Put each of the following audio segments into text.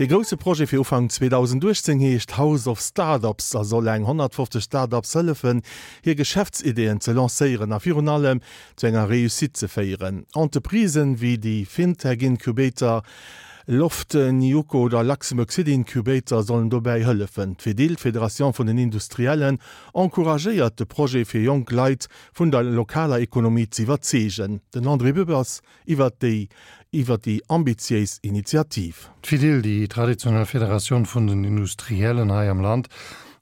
Dee grousse Projet fir Ufank 2018 heescht House of Startups a soll eng 150 Startups hëllefen, hir Geschäftsideeën ze lancéieren a virun allem zu enger Réussite ze féieren. Entreprisen wéi déi Fintech Incubator Loft, Niuko oder Luxembourg City Incubator sollen dobäi hëllefen. D'Fedil, d'Federation vun den Industriellen, encouragéiert de Projet fir jonk Leit vun der lokaler Ekonomie z'iwwerzeegen. Den André Dübbers iwwert déi iwwer déi ambitiéis Initiativ. D'Fedil, déi traditionell Federatioun vun den Industriellen hei am Land,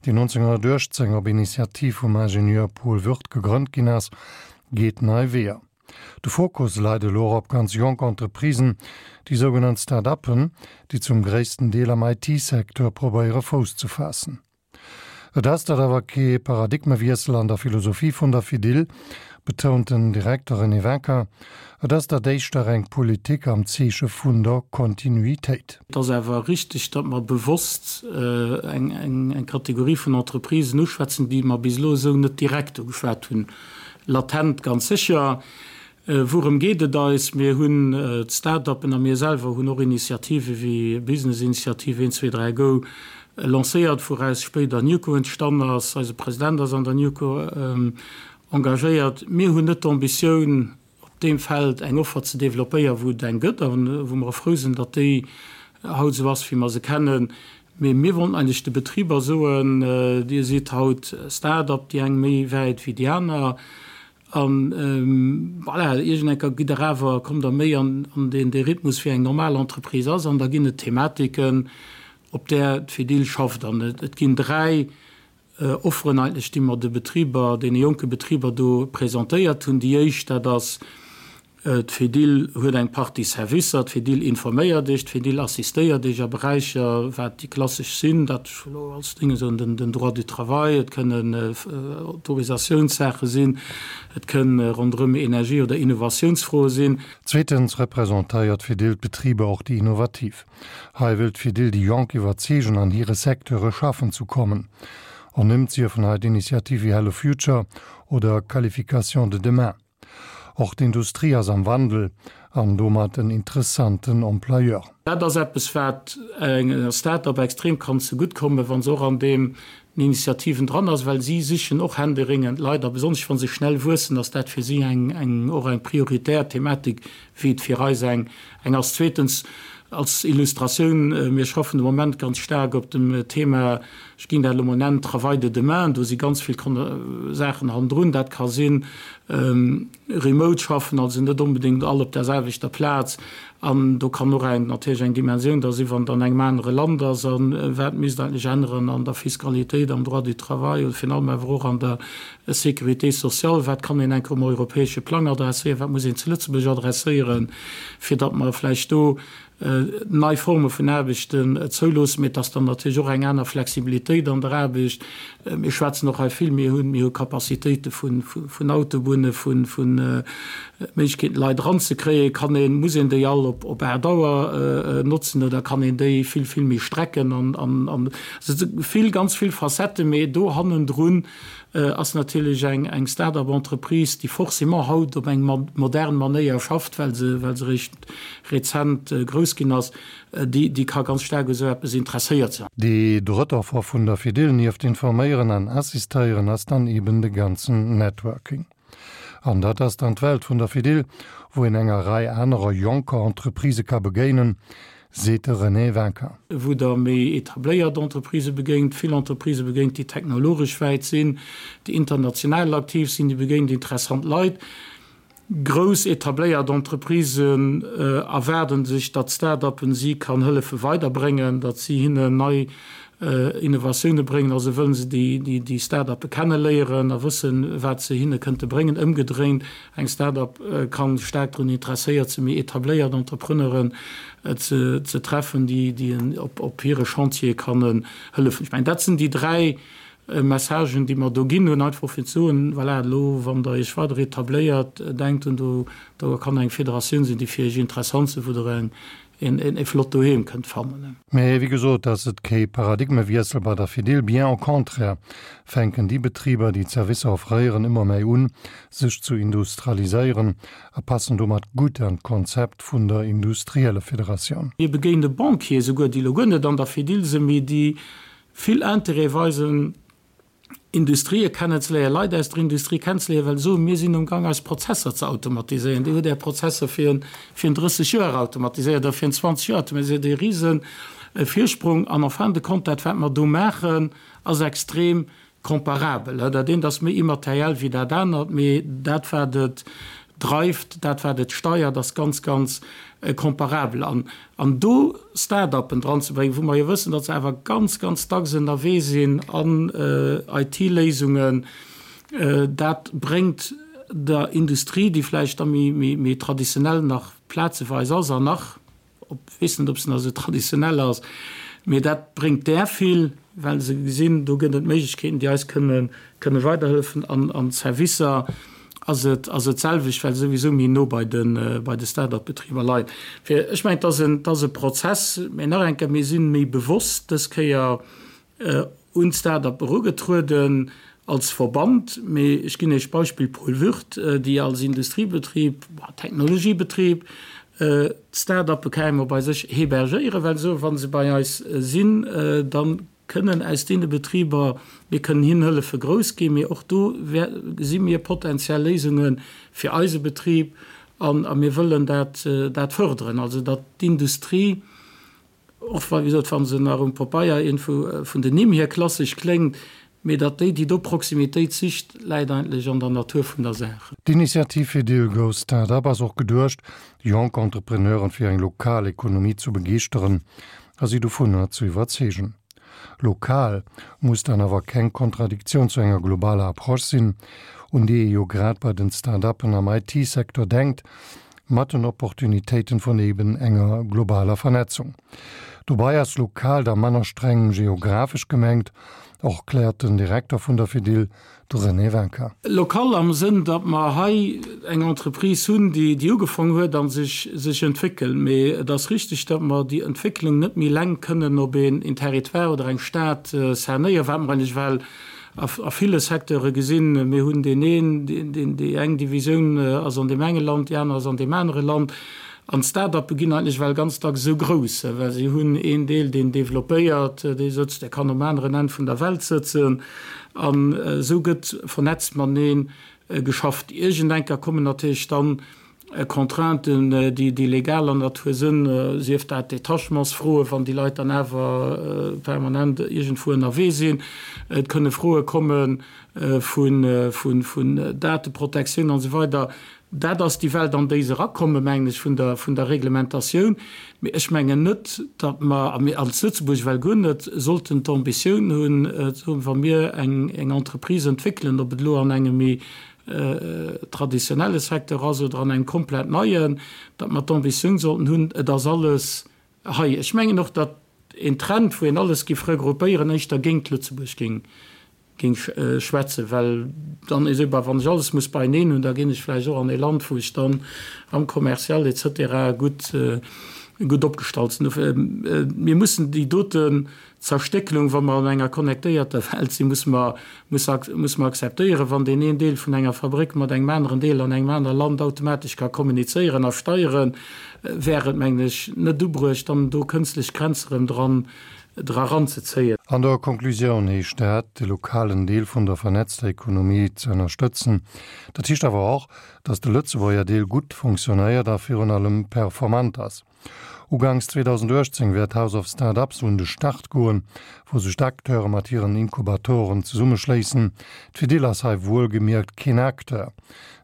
déi 1918 op Initiativ vum Ingenieur Paul Würth gegrënnt ginn ass, geet nei Weeër. De Fokus leit elo och op ganz jonk Entreprisen, déi sougenannt Start-uppen, déi zum gréissten Deel am IT-Secteur probéiere Fouss ze faassen. Et ass dat awer kee Paradigmewiessel an der Philosophie vun der Fedil, betount den Direkter René Wincker. Et ass dat éischter eng Politik am Zeeche vun der Kontinuitéit. Et ass awer richtig, datt mer bewosst eng Kategorie vun Entreprisen uschwätzen, déi mer bis elo esou net direkt ugeschwat hunn. Latent ganz sécher. Wourëm geet et eis? Mir hunn d'Start-uppen a mir selwer hunn och Initiative wéi Business-Initiative 1, 2, 3, Go lancéiert, wouraus spéider Newco entstanden ass. Eise President ass an der Newco engagéiert. Mir hunn net d'Ambitioun, op deem Feld eng Offer ze developpéieren, wou et eng gëtt a wou mer och frou sinn, datt déi haut esou ass, wéi mer se kennen. Mee mir wollten eigentlech de Betriber soen, Dir sidd haut Start-up, déi eng méi wäit wéi déi aner, A voilà, iergendenker gitt Der awer, kommt Der méi an deen dee Rhythmus, wéi eng normal Entreprise ass. An da ginn et Thematiken, op där d'Fedil schafft. An et ginn 3 Offeren eigentlech, déi mer de Betriber, deene jonke Betriber do presentéiert hunn. Déi éischt, dat ass, D'Fedil huet eng Partie Servicer, d'Fedil informéiert Iech, d'Fedil assistéiert Iech a Beräicher, wat déi klassesch sinn, dat ech elo als Dinge soen, den Droit du travail, et kënnen Autorisationssaache sinn, et kënn ronderëm Energie oder Innovatiounsfroe sinn. Zweetens representéiert d'Fedil d'Betriber, och déi innovativ. Hei wëll d'Fedil déi Jonk iwwerzeegen, an hire Secteure schaffen zu kommen. Ernimmt siefen hei d'Initiative wéi Hello Future oder Qualification de demain. Och d'Industrie ass am Wandel an domat en interessanten Employeur. Dat ass eppes, wat enger Start-up extrem kann zegutt kommen, wa se och an deem Initiativen dran ass, well si sichen och händeringend Leit a besonnesch wa se schnell wuessen, ass dat fir si eng och eng prioritär Thematik, wéi et fir eis eng ass. Zweetens, als Illustratioun, Mir schaffen de Moment ganz staark op dem Thema, ech ginn dat elo mol nennen, Travail de demain. Do si ganz vill Saachen hannendrun. Dat ka sinn remote schaffen, also net onbedéngt all op der selwechter Plaz. An do kann och eng natierlech eng Dimensioun da sinn, wann et an engem anere Land ass. A wat misst eigentlech änneren an der Fiskalitéit, am Droit du travail oder virun allem awer och an der Sécurité sociale, wat kann een enker um europäesche Plang adresséieren, wat muss een zu Lëtzebuerg adresséieren, fir datt mer vläicht do nei Forme vun Aarbechten zouloossen. Mee et ass dann natierlech och eng aner Flexibilitéit an der Aarbecht. Mir schwätzen och hei vill, mir hunn, mir hu Capacitéite vun, vun Autobunne, vun, vun Méiglechkeeten, Leit eranzekréien. Kann een, muss een déi all op, op 8 Auer notzen oder kann een déi vill, vill méi strecken? An, an, an also vill, ganz vill Facetten, mee do hannendrun ass natierlech eng, eng Start-up-Entreprise, déi forcément haut op eng modern Manéier schafft, well se, well se eréischt rezent grouss ginn ass, déi, déi ka ganz staark u sou eppes interesséiert sinn. Déi drëtt Offer vun der Fedil, nieft informéieren an assistéieren, ass dann eben de ganzen Networking. An dat ass dann d'Welt vun der Fedil, wou een enger Rei anerer jonker Entreprisë ka begéinen, seet de René Wincker. Wou Der méi etabléiert Entreprisë begéint, vill Entreprisë begéint, déi technologesch wäit sinn, déi international aktiv sinn, déi begéint interessant Leit. Grouss etabléiert Entreprisen erwaarden sech, datt Start-uppen si kann hëllefe weiderbréngen, datt si hinnen nei Innovatioune bréngen. Also wëllen se déi Start-uppe kenneléieren a wëssen, wat se hinne kënnte bréngen. Ëmgedréint, eng Start-up ka staark drun interesséiert sinn, méi etabléiert Entrepreneuren ze treffen, déi op hire Chantiere kann hëllefen. Ech mengen, dat sinn déi 3. Messagen, déi mer do ginn hunn, einfach fir ze soen, voilà, elo wann Der Iech weider etabléiert, denkt un, do do kann eng Federatioun sinn, déi fir Iech interessant sinn, wou Der eng en e flott Doheem kënnt fannen. Mee wéi gesot ass et kee Paradigmewiessel bei der Fedil, bien au contraire fänken déi Betriber, déi d'Servicer offréieren, ëmmer méi un, sech zu industrialiséieren a passen domat gutt an d'Konzept vun der Industriellefederatioun. Mir begéine Banquiere souguer, déi elo guer net an der Fedil sinn, mee déi vill Interêt weisen, Industrië kennenzeléieren, Leit aus der Industrie kennenzeléieren, well se soen, mir sinn um Gang eis Prozesser ze automatiséieren. Dir hutt Är Prozesser fir en 30 Joer automatiséiert oder fir en 20 Joer automatiséiert, e rise Virsprung. An en fin de compte, dat wat mer do maachen, ass extrem comparabel. Dat eent ass méi immateriell wéi dat anert, mee dat wat et dreift, dat wat et steiert, ass ganz, ganz comparabel. An An do Start-uppen dranzebréngen, wou mer jo wëssen, datt se awer ganz, ganz dacks ënnerwee sinn an IT-Léisungen, dat bréngt der Industrie, déi vläicht da méi traditionell nach plazeweis ass an nach, op, weess net, ob se nach esou traditionell ass, mee dat bréngt där vill, well se gesinn, do gëtt et Méiglechkeeten, déi eis kënne kënne weiderhëllefen. An an d'Servicer ass et ass et d'selwecht, well se souwisou méi no bei de bei de Start-up-Betriber leien. Fir ech mengen, et ass en et ass e Prozess, mä nach eng Kéier, mir si méi bewosst dës Kéier un d'Start-up erugetrueden als Verband. Mee ech ginn Iech d'Beispill Paul Würth, déi als Industriebetrib, Technologiebetrib, d'Start-uppe carrément bei sech hébergéieren, well se soen, wa se bei eis sinn, da kënnen aus deene Betriber, mir kënnen hinnen hëllefe grouss ginn, mee och do gesi mir potenziell Léisunge fir eise Betrib an a mir wëllen dat dat fërderen, also datt d'Industrie, och wa, wéi gesot, wa se nach um Papeier iergendwou vun den Nimm hier klassesch kléngt, mee datt déi, déi do Proximitéit sicht, läit eigentlech an der Natur vun der Saach. D'Initiativ fir Deal Go Start-up ass och geduecht, jonk Entrepreneuren fir eng lokal Ekonomie zu begeeschteren a si dovunner ze iwwerzeegen. Lokal muss dann awer keng Kontradiktioun zu enger globaler Approche sinn, un déi ee jo grad bei den Start-uppen am IT-Secteur denkt, mat den Opportunitéiten vun eben enger globaler Vernetzung. Dobei ass lokal da manner streng geographesch gemengt, och kläert den Direkter vun der Fedil, De René Wincker. Local am Sënn, datt mer hei eng Entreprise hunn, déi déi ugefaang huet a sech sech entwéckelt. Mee et ass richtig, datt mer déi Entwécklung net méi eleng kënnen op een Territoire oder eng Stad cernéieren, wat mer eigentlech well a ville Secteure gesinn. Mir hunn deen een, deen déi eng Divisioun ass an deem enge Land, déi aner ass an deem anere Land. An d'Start-uppe ginn eigentlech well ganz dacks esou grouss, well si hunn een Deel, deen developpéiert, dee sëtzt, dee kann um aneren Enn vun der Welt sëtzen. An esou gëtt vernetzt matenee geschafft. Iergendenker kommen natierlech dann Contrainten, déi legaler Natur sënn, sief dat Détachementsfroen, wann déi Leit dann awer permanent iergendwou ënnerwee sinn. Et kënne Froe komme vun Dateprotektioun an esou weider. Dat ass déi Welt, an déi se erakommen, mengen ech, vun der, vun der Reglementatioun. Mee ech mengen net, datt mer, a mir als Lëtzebuerg well guer net, sollten d'Ambitioun hunn, ze soen, wa mir eng, eng Entreprise entwéckelen, ob et elo an engem méi traditionelle Secteur ass oder an engem komplett neien, datt mer d'Ambitioun sollten hunn, et ass alles hei. Ech mengen och, datt een Trend, wou een alles géif regroupéieren, éischter géint Lëtzebuerg géing géing schwätzen, well dann esou, bah, wann ech alles muss beieneen hunn, da ginn ech vläicht och an ee Land, wou ech dann am Commercial et cetera gutt, gutt opgestallt sinn. Dofir, mir mussen déi doten Zerstéckelung, wa mer an enger connectéierter Welt sinn, musse mer, muss, musse mer akzeptéieren, wann deen een Deel vun enger Fabréck mat engem aneren Deel an engem anere Land automatesch ka kommunizéieren a steieren, wär et, mengen ech, net ubruecht, dann do kënstlech Grenze rëm dran dra ranzezéien. An der Konklusioun heescht dat, de lokalen Deel vun der vernetzter Ekonomie ze ënnerstëtzen. Dat heescht awer och, datt de Lëtzebuerger Deel gutt fonctionnéiert a virun allem performant ass. Uganks 2018 wäert House of Start-ups un de Start goen, wou sech d'Acteure mat hiren Inkubatoren zesummeschléissen. D'Fedil ass hei wuelgemierkt keen Acteur,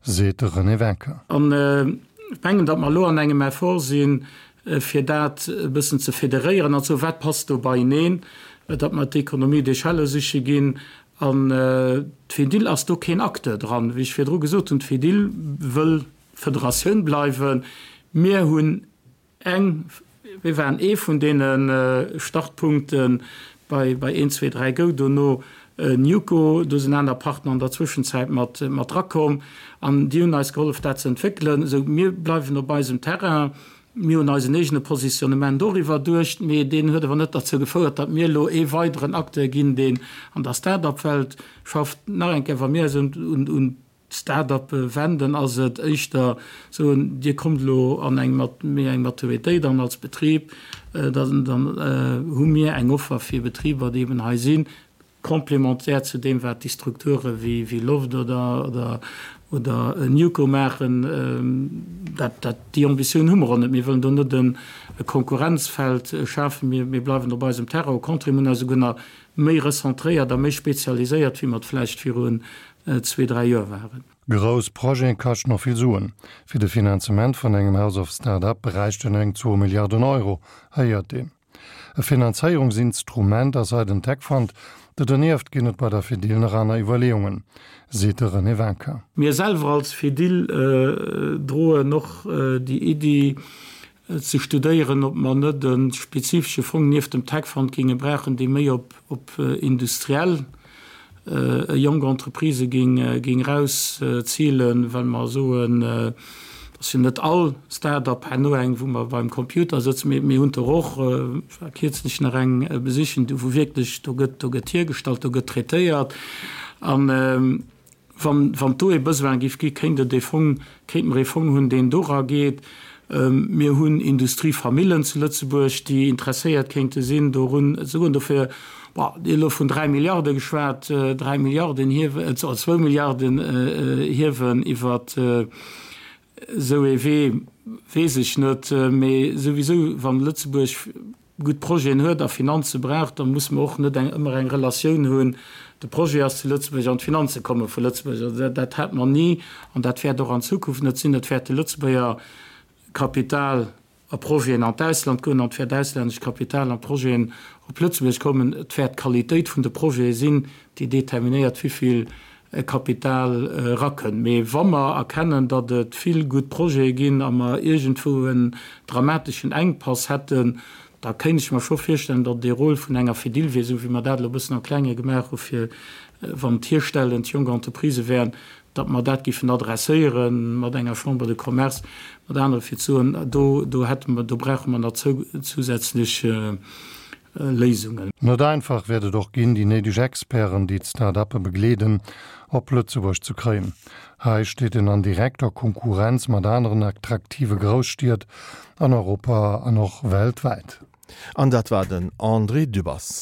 seet de René Wincker. An ech mengen, datt mer elo an engem Effort sinn, fir dat e bëssen ze federéieren an ze soen, wat passt do beieneen, datt mer d'Économie d'échelle siche ginn. An d'Fedil ass do keen Acteur dran. Wéi ech virdru gesot hunn, d'Fedil wëll Federatioun bleiwen. Mir hunn eng, mir waren ee vun deene Startpunkte bei, bei een, zwee, dräi, go dono. Newco, do sinn aner Partner an der Zwëschenzäit mat drakomm an déi hunn eis gehollef dat ze entwéckelen. Esou mir bleiwen op eisem Terrain, mir hunn eisen eegene Positionnement och iwwerduecht, mee deen huet awer net derzou gefouert, datt mir elo ee weideren Acteur ginn, deen an der Start-up-Welt schafft. Nach eng Kéier, wa mir eis un Start-uppe wenden, ass et éischter soen, Dir kommt elo an eng méi eng Maturitéit an als Betrib, dann hu mir eng Offer fir Betriber, déi eben hei sinn, complémentaire zu deem, wat déi Strukture wéi Loft oder oder Newco maachen. Dat, dat, déi Ambitioun hu mer och net. Mir wëllen do net e Konkurrenzfeld schafen. Mir, mir bleiwen op eisem Terrain. Au contraire, mir hunn eis esouguer nach méi recentréiert a méi spezialiséiert, wéi mer et vläicht virun zwee, dräi Joer waren. Grouss Projete kaschten och vill Suen. Fir de Finanzement vun engem House of Start-up bräichten eng zwou Milliarden Euro, héiert een. E Finanzéierungsinstrument ass hei den Tech Fund. Do dernieft ginn et bei der Fedil nach aner Iwwerleeungen, seet de René Winkin. Mir selwer als Fedil droen och déi Iddi, ze studéieren, ob mer net e spezifesche Fong nieft dem Tech Fund géinge brauchen, dee méi op op industriell jonk Entreprisë géing géing erauszilen, well mer soen, et ass jo net all Start-up herno eng, wou mer beim Computer sëtzen, mee mir hunn der och, ech war kierzlech nach eng besichen, do wou wierklech, do gëtt do gëtt hiergestallt, do gëtt traitéiert an, Wann, wann do ee Besoin géif gi, kéint et ee Fong, kéinte mer ee Fong hunn, deen dora geet. Mir hunn Industriefamillen zu Lëtzebuerg, déi interesséiert kéinte sinn dorun ze goen. Dofir, bon, Dir hutt elo vun 3 Milliarde geschwat, 3 Milliarden hiewen, oder zwou Milliarden hiewen iwwer esou ee Wee, weess ech net. Mee souwisou, wann Lëtzebuerg gutt Projeten huet a Finanze brauch, da musse mer och net eng ëmmer eng Relatioun hunn, de Projet ass zu Lëtzebuerg an d'Finanze komme vu Lëtzebuerg. Also dat, dat hat mer ni an dat wäert och an Zukunft net sinn. Et wäert de Lëtzebuerger Kapital a Projeten an d'Ausland goen an et wäert auslännescht Kapital a Projeten op Lëtzebuerg kommen. Et wäert d'Qualitéit vun de Projete sinn, déi determinéiert, wéivill Kapital erakënnt. Mee wa mer erkennen, datt et vill gutt Projete ginn a mer iergendwou en dramateschen Enkpass hätten, da kéint ech mer scho virstellen, datt et ee Rôle vun enger Fedil wier, esou wéi mer dat elo e bëssen am Klenge gemaach hu fir, wann et hierstellend jonk Entreprisë wären, datt mer dat géifen adresséiere mat enger Chambre de Commerce, mat anere fir ze soen, do, do hätte mer, do brauche mer nach zousätzlech Léisungen. Net einfach wäert et och ginn, déi néideg Experten, déi d'Start-uppe begleeden, op Lëtzebuerg ze kréien. Hei steet een an direkter Konkurrenz mat aneren attraktive Grousstied an Europa an och weltwäit. An dat war den André Dübbers.